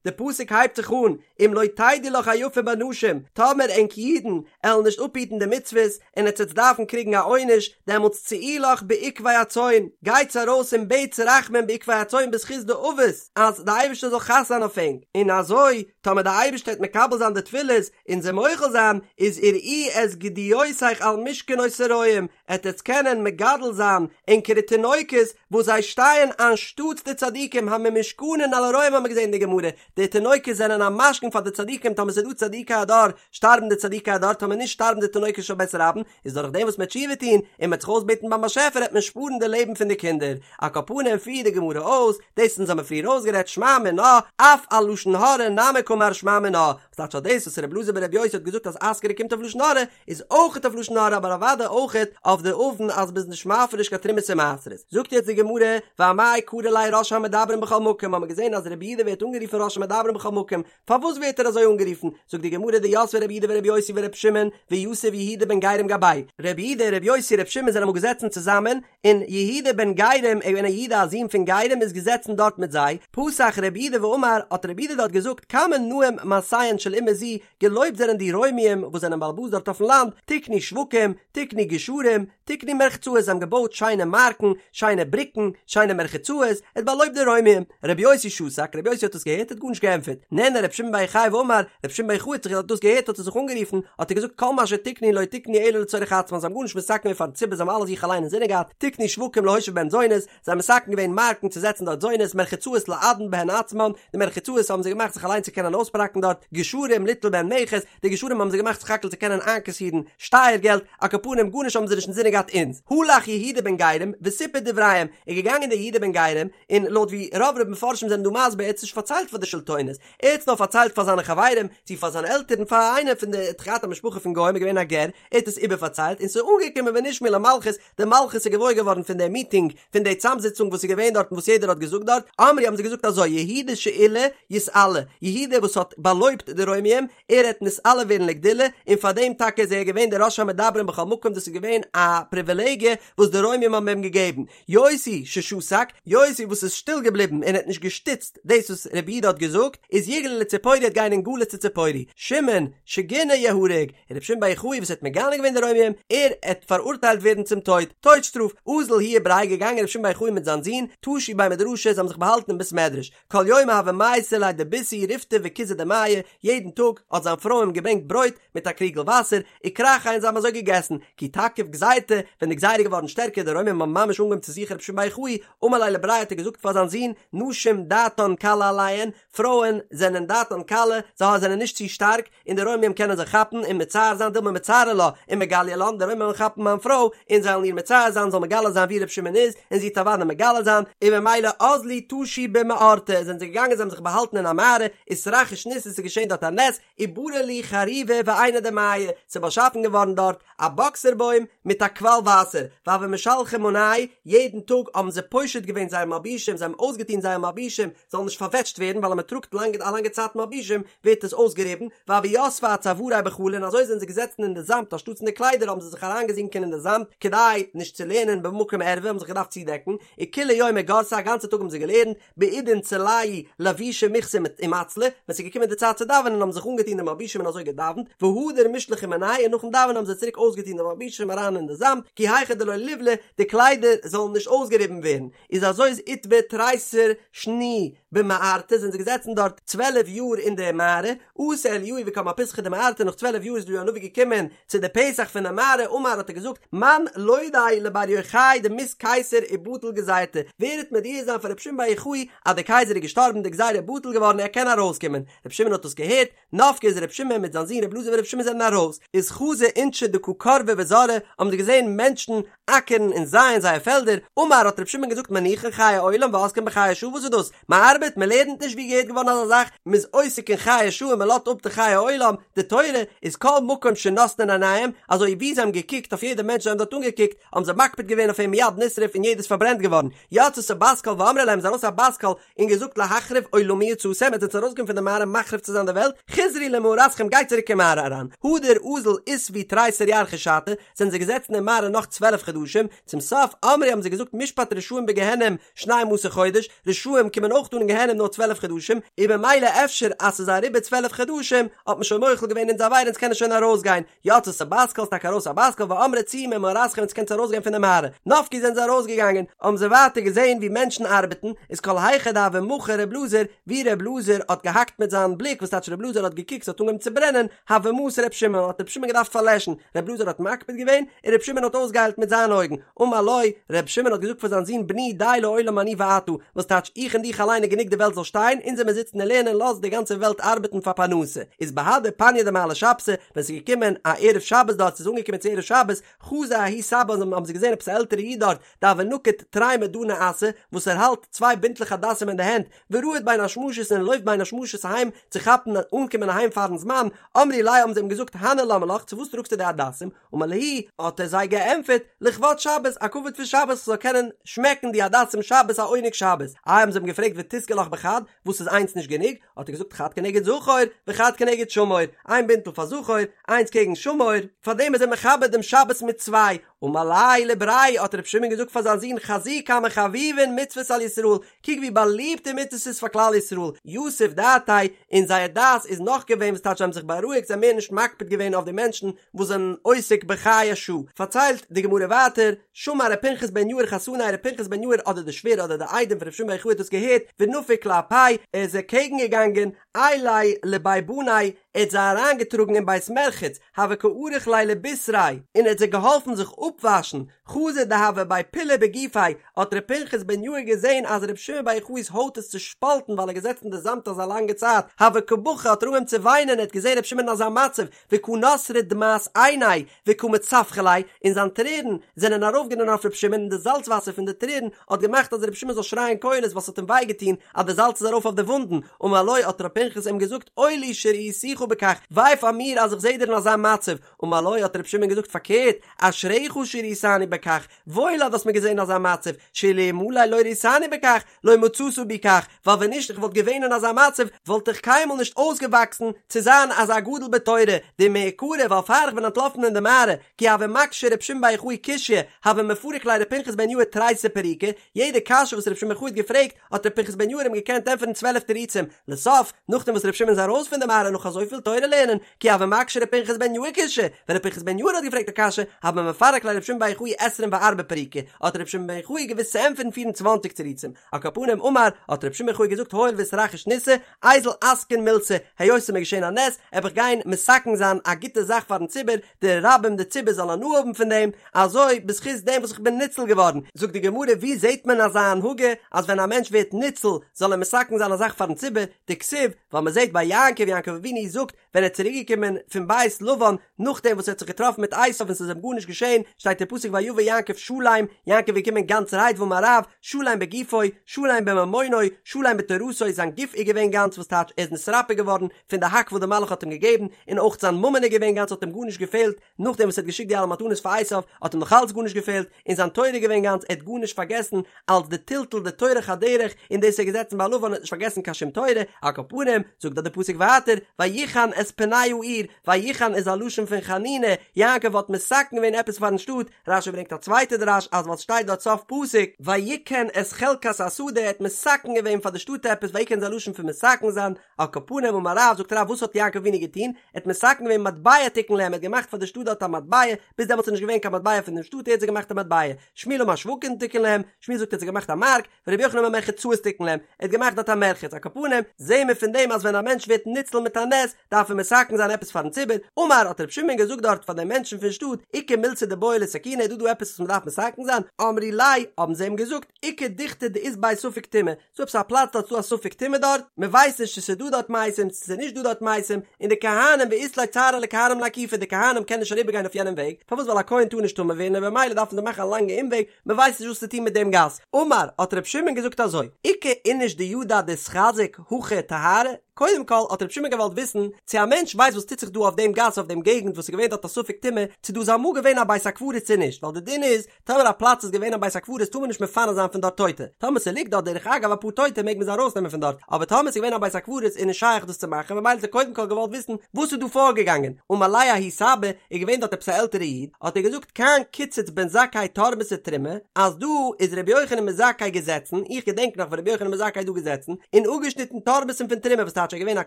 די פסוק הייבט זיך אן, אם לא תדעי לך היפה בנשים, טאמער ענק אידן עלן נישט אפהיטן די מצוות, און עטס עטס דארפן קריגן א עונש, דעמאלטס צאי לך בעקבי הצאן, גייטס ארויס און בעטס רחמים בעקבי הצאן בזכות די אבות, אז די אייבערשטער זאל חס זיין אויף ענק, און אזוי, טאמער די אייבערשטער וועט מקבל זיין די תפילות, און זיי מוחל זיין, איז ורעי את גדיותיך על משכנות הרועים, עט עטס קענען מגדל זיין ענקערע תינוקות וואס זיי שטייען אנשטאטס די צדיקים הממושכנין על הרועים האמיר געזען אין די גמרא, די תינוקות זענען א משכון פאר די צדיקים טאמער ס'איז דא צדיקי הדור שטארבן די צדיקי הדור טאמער נישט שטארבן די תינוקות של בית רבן, איז דורך דעם וואס מ'עט תשובה טון און מ'עט זיך אויסבעטן ביים באשעפער עט מען שפארן די לעבן פון די קינדער, על כל פנים פירט די גמרא אויס, דאס אונז האמיר פריער אויסגערעדט שמע מינה, אף על לשון הרע נמי קאמר שמע מינה, וואס טייטש אז דאס וואס ר' אלעזר בר' יוסי האט געזאגט אז אסכרה קומט אויף לשון הרע, איז אויכעט אויף לשון הרע אבער אוודאי אויכעט אויף די עוון אז מ'איז נישט מפריש קיין תרומות און מעשרות. זאגט יעצט די גמרא, ואמאי קרי ליה ראש המדברים בכל מקום, האמיר געזען אז רבי יהודה ווערט אנגערופן ראש המדברים בכל מקום, פארוואס ווערט ער אזוי אנגערופן? זאגט די גמרא דיתבי רבי יהודה ורבי יוסי ורבי שמעון ויתיב יהודה בן גרים גבייהו, רבי יהודה, רבי יוסי, רבי שמעון זענען אמאל געזעצן צוזאמען, און יהודה בן גרים, ער איז געווען א יהודה א זון פון גרים איז געזעצן דארט מיט זיי, פתח רבי יהודה ואמר, האט רבי יהודה דארט געזאגט כמה נאים מעשיהן של אומה זו, געלויבט זענען די רוימיים וואס זענען בעל הבית דארט אויפן לאנד, תקנו שווקים, תקנו גשרים, תקנו מרחצאות, זיי האבן געבויט שיינע מארקן, שיינע בריקן, שיינע מרחצאות, ער האט באלויבט די רוימיים. רבי יוסי שתק, רבי יוסי האט עס געהערט, האט גארנישט געענטפערט. נענה רבי שמעון בר יוחאי ואמר, רבי שמעון בר יוחאי האט זיך האט דאס געהערט האט ער זיך אנגערופן, האט ער געזאגט כל מה שתקנו לא תקנו אלא לצורך עצמן, זיי האבן גארנישט מתקן געווען פארן ציבור, זיי האבן אלעס זיך אליין אינזינען געהאט, תקנו שווקים להושיב בהן זונות, זיי האבן מתקן געווען מארקן צו זעצן דארט זונות, מרחצאות לעדן בהן עצמן, די מרחצאות האבן זיי געמאכט זיך אליין צו קענען אויספראקן דארט, גשרים ליטול בהן מכס, די גשרים האבן זיי געמאכט סך הכל צו קענען איינקאסירן שטייער געלט, על כל פנים גארנישט האבן זיי נישט אינזינען געהאט אונז. הלך יהודה בן גרים וסיפר דבריהם, איז געגאנגען דער יהודה בן גרים, און לויט ווי רוב רוב מפרשים זענען דא מסביר ער האט עס נישט פארציילט פאר די שלטונות, ער האט עס נאר פארציילט פאר זיינע חברים, צו פאר זיינע עלטערן, פאר איינער פון די האט געהאט א משפחה פון גוים, איז געווען א גר, ער האט עס איבערפארציילט, און ס'איז אנגעקומען ונשמעו למלכות, די מלכות איז געוואויר געווארן פון די מיטינג, פון די צאמזיצונג וואס איז געווען דארט און וואס יעדער האט געזאגט דארט, אמרו האבן זיי געזאגט אזוי, יהודה שעילה יתעלה, יהודה וואס האט באלויבט די רוימיים, ער העט נתעלה ווערן לגדולה, און פאר דעם טאקע איז ער געווען דער ראש המדברים בכל מקום, דאס איז געווען א פריווילעגיע וואס די רוימיים האבן אים געגעבן. יוסי ששתק, יוסי וואס איז שטיל געבליבן און האט נישט געשטיצט דאס וואס רבי יהודה האט געזאגט, איז יגלה לציפורי העט גיין אין גלות צו ציפורי, שמעון שגינה יהרג, און רבי שמעון בר יוחאי וואס האט מגנה געווען די רוימיים, ער עט פאראורטיילט ווערן צום טויט, טויט שטראף, אזל הוא ובריה געגאנגען רבי שמעון בר יוחאי מיט זיין זון, טשו בי מדרשא, זיי האבן זיך באהאלטן אין בית מדרש, כל יומא הוה מייתא ליה דביתהו ריפתא וכוזא דמיא, יעדן טאג האט זיין פרוי אים געברענגט ברויט מיט א קריגל וואסער, וכרכיה און זיי האבן אזוי געגעסן, כי תקיף גזירתא, ווען די גזירה איז געווארן שטערקער די רוימים האבן ממש אנגעהויבן צו זוכן רבי שמעון בר יוחאי, אמר ליה לבריה האט ער געזאגט פאר זיין זון, נשים דעתן קלה עליהן, פרויען זענען דעתן קלה, זיי זענען נישט צו שטארק, און די רוימים קענען זיי כאפן און מצער זיין דילמא מצערי לה ומגליא לן, די רוימים וועלן כאפן מיין פרוי און זיי וועלן איר מצער זיין, זאל מגלה זיין וואו ר' שמעון איז, און זי וועט אוודאי מגלה זיין, און ממילא אזלו טשו במערתא, זענען זיי געגאנגען זיי האבן זיך באהאלטן אין א מערה, אתרחיש ניסא ס'איז געשען דארט א נס, וברא להו חרובה ועינא דמיא, ס'איז באשאפן געווארן דארט א באקסער בוים מיט א קוואל וואסער, והוו משלחי מאנייהו, יעדן טאג האבן זיי פושט געווען זייער מלבושים, זיי האבן אויסגעטון זייער מלבושים, זאלן נישט פארוועטשט ווערן, ווייל אז מען טראגט לאנג א לאנגע צייט מלבושים ווערט עס אויסגעריבן, והוו יתבי אצווארייהו בחלא און אזוי זענען זיי געזעצן אין די זאמד אנשטאטס אין די קליידער האבן זיי זיך אריינגעזינקען אין די זאמד כדי נישט צו לערנען במקום ערווה האבן זיך געדארפט צודעקן, וכולי יומא גרסי א גאנצע טאג האבן זיי געלערנט, בעידן צלייהו לבושי מיכסי ומצלי, ווען ס'איז געקומען די צייט צו דאווענען האבן זיך אנגעטון די מלבושים און אזוי געדאווענט, והדר משלחי מינייהו און נאכן דאווענען האבן זיי צוריק אויסגעטון די מלבושים אריין אין די זאמד, כי היכי דלא ליבלו, די קליידער זאלן נישט אויסגעריבן ווערן, איז אזוי איז אתבו תריסר שני במערתא זענען זיי געזעצן דארט 12 יאר אין די מערה, אתא אליהו וקם אפיתחא דמערתא נאך 12 יאר איז אליהו הנביא געקומען צו די פתח פון די מערה אמר האט ער געזאגט מאן לודעיה לבר יוחאי דמית קיסר ובטיל גזירתיה ווער וועט מודיע זיין פאר רבי שמעון בר יוחאי אז די קייזער איז געשטארבן די גזירה איז בטל געווארן ער קען ארויסקומען רבי שמעון האט דאס געהערט נפקי איז רבי שמעון מיט זיין זון רבי אלעזר ברבי שמעון זענען ארויס, איז חזו אינשי דקא כרבי וזרעי, האבן זיי געזען מענטשן אקערן און זייען זייער פעלדער, אמר האט רבי שמעון געזאגט מניחין חיי עולם ועוסקין בחיי שעה וואס איז דאס? מען ארבעט? מען לערנט נישט ווי געהערט געווארן אזא זאך? מען איז עוסק אין חיי שעה און מען לאזט אפ די חיי עולם, די תורה איז כל מקום שנותנין עיניהם, אזוי ווי זיי האבן געקוקט אויף יעדע מענטש זיי האבן דארט אנגעקוקט, האבן זיי מקפיד געווען אויף אים מיד נשרף און יעדער איז פארברענט געווארן, יצתה בת קול ואמרה להם איז ארויס א בת קול און געזאגט להחריב עולמי יצאתם, עטס זענטס ארויסגעקומען פון די מערה מחריב צו זיין די וועלט, חזרו למערתכם גייט צוריק אין מערה אריין, הדר אזול אתיבו תריסר ירחי שתא, זענען זיי געזעצן אין מערה נאך 12 חדשים, צום סוף אמרי האבן זיי געזאגט משפט רשעים בגיהנום שנים עשר חודש, רשעים קומען אויך אן אין גיהנום נאר 12 חדשים, און במילא אפשר אז ס'איז אריבער 12 חדשים האט מען שוין מוחל געווען אונזער עבירה אונז קענען שוין ארויסגיין, יצתה בת קול, ס'טאקע ארויס א בת קול ואמרה צאו ממערתכם עטס קענטס ארויסגיין פון די מערה. נפקי זענען זיי ארויסגעגאנגען, האבן זיי ווייטער געזען ווי מענטשן ארבעטן, איז כל היכא דהוה מחי ר' אלעזר, ווי ר' אלעזר האט געהאקט מיט זיין בליק, וואס טייטש ר' אלעזר האט געקוקט ס'האט אנגעהויבן צו ברענען, הוה מסי ר' שמעון, האט ר' שמעון געדארפט פארלעשן, ר' אלעזר האט מקפיד געווען, און ר' שמעון האט אויסגעהיילט מיט זיינע אויגן, אמר לו, ר' שמעון האט געזאגט פאר זיין זון בני די לעולם אני ואתה, וואס טייטש איך און דיך אליין איז גענוג די וועלט זאל שטיין, אונז זעמיר זיצן און לערנען לאז די גאנצע וועלט ארבעטן פאר פרנסה, איז בהדי פניא דמעלי שבתא, ווען ס'איז געקומען א ערב שבת דארט ס'איז אנגעקומען צו ערב שבת, חזו ההוא סבא האבן זיי געזען עפעס א עלטערע איד דארט, דהוה נקיט תרי מדני אסא, וואס ער האלט צוויי בינטלעך הדסים אין די הענט, ורהיט בין השמשות און ער לויפט בין השמשות אהיים צו כאפן אנקומען אהיים פארן זמן, אמרי ליה האבן זיי אים געזאגט הני למה לך צו וואס טראגסטו די הדסים, אמר להו, האט ער זיי געענטפערט, לכבוד שבת, א כבוד פון שבת, כ'זאל קענען שמעקן די הדסים שבת א עונג שבת. איי האבן זיי אים געפרעגט ותיסגי לך בחד, וואס איז איינס נישט גענוג? האט ער געזאגט חד כנגד זכור וחד כנגד שמור, איין בינטל פאר זכור, איינס קעגן שמור, פארדעם איז ער מכבד דעם שבת מיט צוויי. אמר ליה לבריה, האט רבי שמעון געזאגט פאר זיין זון חזי כמה חביבין מצוות על ישראל, קוק ווי באליבט די מצוות איז פאר כלל ישראל, יתיב דעתיה, און זייער דעת איז נח געווען וואס טייטש זיי האבן זיך בארואיגט זיי האבן מער נישט מקפיד געווען אויף די מענטשן וואס זענען עוסק בחיי שעה. פארציילט די גמרא ווייטער, שמע ר' פנחס בן יאיר חתניה ר' פנחס בן יאיר אדער די שווער אדער די איידעם פון ר' שמעון בר יוחאי האט דאס געהערט, ונפק לאפיה, ער איז אקעגן געגאנגען, עייליה לבי בניה, ער האט זיי אריינגעטראגן אין בית מרחץ, הוה קא עריך להו לבישריה, און ער האט זיי געהאלפן זיך אפוואשן, חזא דהוה בי פילא בגופיה, האט ר' פנחס בן יאיר געזען אז ר' שמעון בר יוחאי'ס הויט איז צושפאלטן ווייל ער איז געזעצן אין די זאמד אזא לאנגע צייט, הוה קא בכי האט ער אנגעהויבן צו וויינען, ער האט געזען ר' שמעון אין אזא מצב, וקא נתרה דמעת עיניה וקא מצווחא ליה, און זיין טרערן זענען ארויפגערינען אויף ר' שמעון און די זאלץ וואסער פון די טרערן האט געמאכט אז ר' שמעון זאל שרייען קולות ווייל ס'האט אים וויי געטון אז די זאלץ איז ארויף אויף די וואונדן, אמר לו האט ר' פנחס אים געזאגט אוי לי שראיתיך בכך, וויי פאר מיר אז איך זעה דיר אין אזא מצב, אמר לו האט ר' שמעון געזאגט פארקערט, אשריך שראיתני בכך, וואויל אז דו האסט מיר געזען אין אזא מצב, שאלמלא לא ראיתני בכך, לא מצאת בי כך, ווייל ווען נישט איך וואלט געווען אין אזא מצב, וואלט איך קיינמאל נישט אויסגעוואקסן צו זיין אזא גדול בתורה, דמעיקרא ווייל פאר איך בין אנטלאפן אין די מערה, כי הוה מקשי ר' שמעון בר יוחאי קושיא, הוה מפריק ליה ר' פנחס בן יאיר תריסר פירוקי, יעדע קשיא וואס ר' שמעון בר יוחאי האט געפרעגט, האט ר' פנחס בן יאיר אים געקענט ענטפערן 12 תירוצים, לסוף, נאכדעם וואס ר' שמעון איז ארויס פון די מערה נאך אזויפיל תורה לערנען, כי הוה מקשי ר' פנחס בן יאיר קושיא, ווען ר' פנחס בן יאיר האט געפרעגט א קשיא, הוה מפרק ליה ר' שמעון בר יוחאי עשרים וארבעה פירוקי, האט ר' שמעון בר יוחאי געוואוסט צו ענטפערן 24 תירוצים. על כל פנים אמר, האט ר' שמעון בר יוחאי געזאגט הואיל ואיתרחיש ניסא, איזיל אתקין מילתא, היות ס'איז מיר געשען א נס, עב איך גיין מתקן זיין א גוטע זאך פארן ציבור, די רבים די ציבור זאל הנאה האבן פון דעם, אזוי בזכות דעם וואס איך בין ניצל געווארן. זאגט די גמרא וואו זעט מען אזא הנהגה אז ווען א מענטש ווערט ניצל זאל ער מתקן זיין א זאך פארן ציבור, דכתיב, ווייל מען זעט ביי יעקב, יעקב אבינו זאגט ווען ער איז צוריק געקומען פון בית לבן נאכדעם וואס ער האט זיך געטראפן מיט עשיו און ס'איז אים גארנישט געשען, שטייט אין פסוק ויבא יעקב שלם, יעקב איז געקומען גאנצערהייט ואמר רב, שלם בגופו, שלם בממונו, שלם בתורתו, זיין גוף איז געווען גאנץ וואס טייטש ער איז נתרפא געווארן פון די האק וואס די מלאך האט אים געגעבן, און אויך זיין ממון איז געווען גאנץ האט אים גארנישט געפעלט, נאכדעם וואס ער האט געשיקט די אלע מתנות פאר עשיו האט אים נאך אלץ גארנישט געפעלט, און זיין תורה איז געווען גאנץ, ער האט גארנישט פארגעסן, אלץ די טלטול די טורח הדרך, און דאס איז ער געזעצן. געזעצן ביי לבן און האט נישט פארגעסן קיין שום תורה, על כל פנים, זאגט דארט די פסוק ווייטער, ויחן את פני העיר, ויחן איז א לשון פון חנינה, יעקב האט מתקן געווען עפעס פארן שטאט, רש"י ברענגט א צווייטע דרש אז ווייל סשטייט דארט סוף פסוק, ויקן את חלקת השדה ער האט מתקן געווען פאר די שטאט עפעס, ויקן איז א לשון פון מתקן זיין, על כל פנים אמר רב, זאגט רב וואס האט יעקב אבינו געטון, ער האט מתקן געווען מטבע תיקן להם, ער האט געמאכט פאר די שטאט דארט א מטבע, ביז דעמאלטס איז נישט געווען קיין מטבע פון דעם שטאט ער האט זיי געמאכט א מטבע, שמואל אמר שווקים תיקן להם, שמואל זאגט ער האט זיי געמאכט א מארק, ורבי יוחנן אמר מרחצאות תיקן להם, ער האט געמאכט דארט א מרחץ, על כל פנים, זעהן מיר פון דעם אז ווען א מענטש ווערט ניצל מיט א נס, דארף ער מתקן זיין עפעס פארן ציבור, אמר האט רבי שמעון געזאגט דארט פאר די מענטשן פון שטאט, איכא מילתא דבעי לתקוני איז דא דא עפעס וואס מען דארף מתקן זיין, אמרי ליה, האבן זיי אים געזאגט, איכא דוכתא דאית ביה ספק טומאה, ס'דא עפעס א פלאץ דארט ס'דא א ספק טומאה דארט, מען ווייסט נישט צו ס'איז דא דארט מתים צו ס'איז נישט דא דארט מתים, און די כהנים ואית להו צערא לכהנים לאקופי די כהנים קענען נישט אריבער גיין אויף יענעם וועג, פארוואס ווייל א כהן טאר נישט טמא ווערן און במילא דארפן זיי מאכן א לאנגע אומוועג, מען ווייסט נישט וואס צו טון מיט דעם גאס. אמר, האט ר' שמעון געזאגט אזוי, איכא איניש דידע דאיתחזק הכא טהרה, קודם כל האט ר' שמעון געוואלט וויסן צו א מענטש ווייסט וואס טוט זיך דא אויף דעם גאס אויף דעם געגנט וואס איז געווען דארט א ספק טומאה, צו דא איז אמאל געווען א בית הקברות צו נישט, ווייל די דין איז, טאמער א פלאץ איז געווען א בית הקברות טאר מען נישט מפנה זיין פון דארט טויטע, טאמער ס'ליגט דארט דרך אגב אפאר טויטע מעג מען זיי ארויסנעמען פון דארט, אבער טאמער ס'איז געווען א בית הקברות איז נישט שייך דאס צו מאכן ממילא האט ער קודם כל געוואלט וויסן וואס איז דא פארגעגאנגען, אמר ליה ההוא סבא, איז געווען דארט עפעס א עלטערע איד, האט ער געזאגט כאן קיצץ בן זכאי תורמסי תרומה, אז דא איז רבי יוחנן בן זכאי געזעצן, איך געדענק נאך ווען רבי יוחנן בן זכאי איז דא געזעצן, און אפגעשניטן תורמוס'ן פון תרומה וואס טייטש ער איז געווען א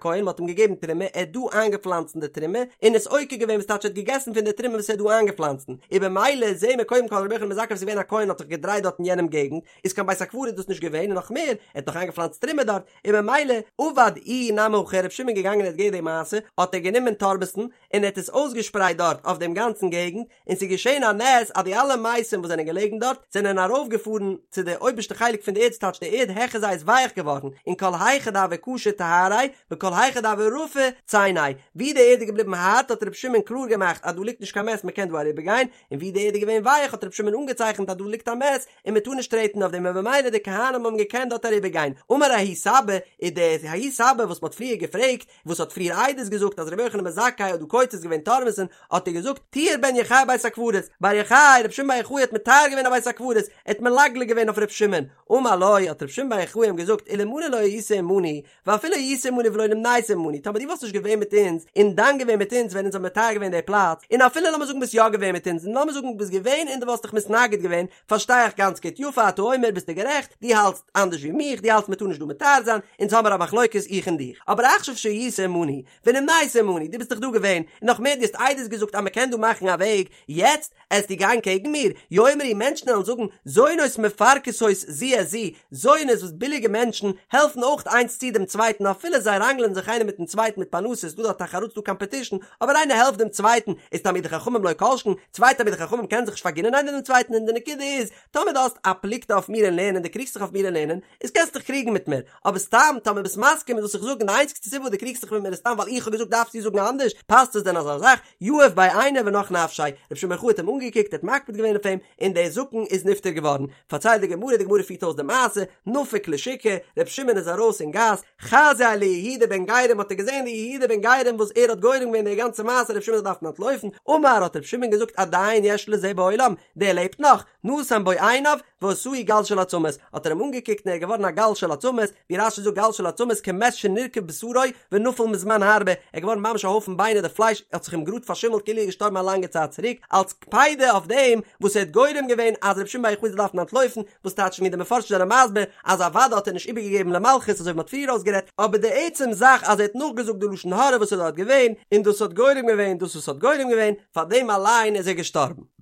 כהן מ'האט אים געגעבן תרומה ער האט דא איינגעפלאנצן די תרומה, און עס עוקר געווען וואס טייטש ער האט געגעסן פון די תרומה וואס ער האט דא איינגעפלאנצן, און במילא זעהן מיר קודם כל רבי יוחנן בן זכאי וואס איז געווען א כהן האט זיך געדרייט דארט אין יענעם געגנט, איז קיין בית הקברות דאס נישט געווען און נאך מער, ער האט נאך איינגעפלאנצט תרומה דארט, און במילא עבד איהו נמי הכי רבי שמעון געגאנגען ער האט געהערט די מעשה, האט ער גענומען תורמוס'ן און ער האט עס אויסגעשפרייט דארט אויף דעם גאנצן געגנט, און ס'איז געשען א נס אז די אלע מתים וואס זענען געלעגן דארט זענען ארויפגעפארן צו די אויבערשטע חלק פון די ערד ס'טייטש די ערד העכער זיי איז ווייך געווארן, און כל היכא דהוה קשי טהריה וכל היכא דהוה רפי צייניה, ווי די ערד איז געבליבן הארט האט רבי שמעון קלאר געמאכט אז דא ליגט נישט קיין מת מ'קען דא אריבערגיין, און ווי די ערד איז געווען ווייך האט רבי שמעון אנגעצייכנט אז דא ליגט א מת און מ'טאר נישט טרעטן אויף דעם און במילא די כהנים האבן געקענט דארט אריבערגיין, אמר ההוא סבא, איז דער ההוא סבא וואס מ'האט פריער געפרעגט, וואס האט פריער עדות געזאגט אז רבי יוחנן בן זכאי האט דא קוצץ געווען תורמוס'ן, האט ער געזאגט, טיהר בן יוחאי בית הקברות, בר יוחאי, רבי שמעון בר יוחאי האט מטהר געווען א בית הקברות, ער האט מלגלג געווען אויף רבי שמעון, אמר לו, האט רבי שמעון בר יוחאי אים געזאגט, אלמלי לא היית עמנו, ואפילו היית עמנו ולא נמנית עמנו, טאמער דו וואלסט נישט געווען מיט אונז, און דן געווען מיט אונז ווען אונז האבן מטהר געווען די פלאץ, און אפילו לאמיר זאגן ביסט יא געווען מיט אונז, און לאמיר זאגן ביסט געווען און דו וואלסט דיך מתנגד געווען, פארשטיי איך גאנץ גוט, יפה אתה אומר ביסטו גערעכט, דו האלטסט אנדערש ווי מיך, דו האלטסט מען טאר נישט דא מטהר זיין, אונז האמער א מחלוקת איך און דיך, אבער עכשיו שהיית עמנו, ונמנית עמנו, דו ביסט דאך דא געווען, און נאך מער דו האסט עדות געזאגט אז מען קען דא מאכן א וועג, יעצט עסטו גיין קעגן מיר? יאמרו מענטשן וועלן זאגן, זונות מפרכסות זו את זו, זונות וואס ביליגע מענטשן העלפן אויך איינס צו דעם צווייטן אפילו זיי ראנגלען זיך איינער מיטן צווייטן מיט פרנסה, ס'דא דארט תחרות ס'דא קאמפעטישן, אבער איינער העלפט דעם צווייטן, איז תלמידי חכמים לא כל שכן, צוויי תלמידי חכמים קענען זיך נישט פארגינען איינער דעם צווייטן און די נקודה איז, טאמער דו האסט א פלוגתא אויף מיר אין לערנען דו קריגסט זיך אויף מיר אין לערנען, איז קענסט דיך קריגן מיט מיר, אבער סתם טאמער ביסט מסכים מיט וואס איך זאג און די איינציגסטע סיבה וואס דו קריגסט זיך מיט מיר איז סתם ווייל איך האב געזאגט דארפסטו זאגן אנדערש, פאסט עס דען אזא זאך? יהיב ביה עיניה ונח נפשיה, רבי שמעון בר יוחאי האט אים אנגעקוקט, ער האט מקפיד געווען אויף אים, און דער זקן איז נפטר געווארן. פארציילט די גמרא, די גמרא פירט אויס די מעשה, נפק לשוקא, רבי שמעון איז ארויס אין גאס, חזייה ליהודה בן גרים האט ער געזען די יהודה בן גרים וואס ער האט גורם געווען די גאנצע מעשה רבי שמעון זאל דארפן אנטלויפן, אמר האט רבי שמעון געזאגט עדיין יש לזה בעולם, דער לעבט נאך, נתן בו עיניו, ועשאו גל של עצמות, האט ער אים אנגעקוקט און ער איז געווארן א גל של עצמות, ווי רש"י זאגט גל של עצמות כמת שנרקב בשרו ונפל מזמן הרבה, ער איז געווארן ממש א הויפן ביינער די פלייש האט זיך אים גראד פארשימלט כאילו ער איז געשטארבן א לאנגע צייט צוריק, אלס קפידה אויף דעם וואס ער האט גורם געווען אז רבי שמעון בר יוחאי זאל דארפן אנטלויפן, וואס טייטש ווי די מפרשים זענען מסביר אז אוודאי האט ער נישט איבערגעגעבן למלכות אזוי ווי מען האט פריער אויסגערעדט, אבער די עצם זאך אז ער האט נאכגעזאגט די לשון הרע וואס איז דארט געווען, און דאס האט גורם געווען דאס וואס האט גורם געווען, פאר דעם אליין איז ער געשטארבן.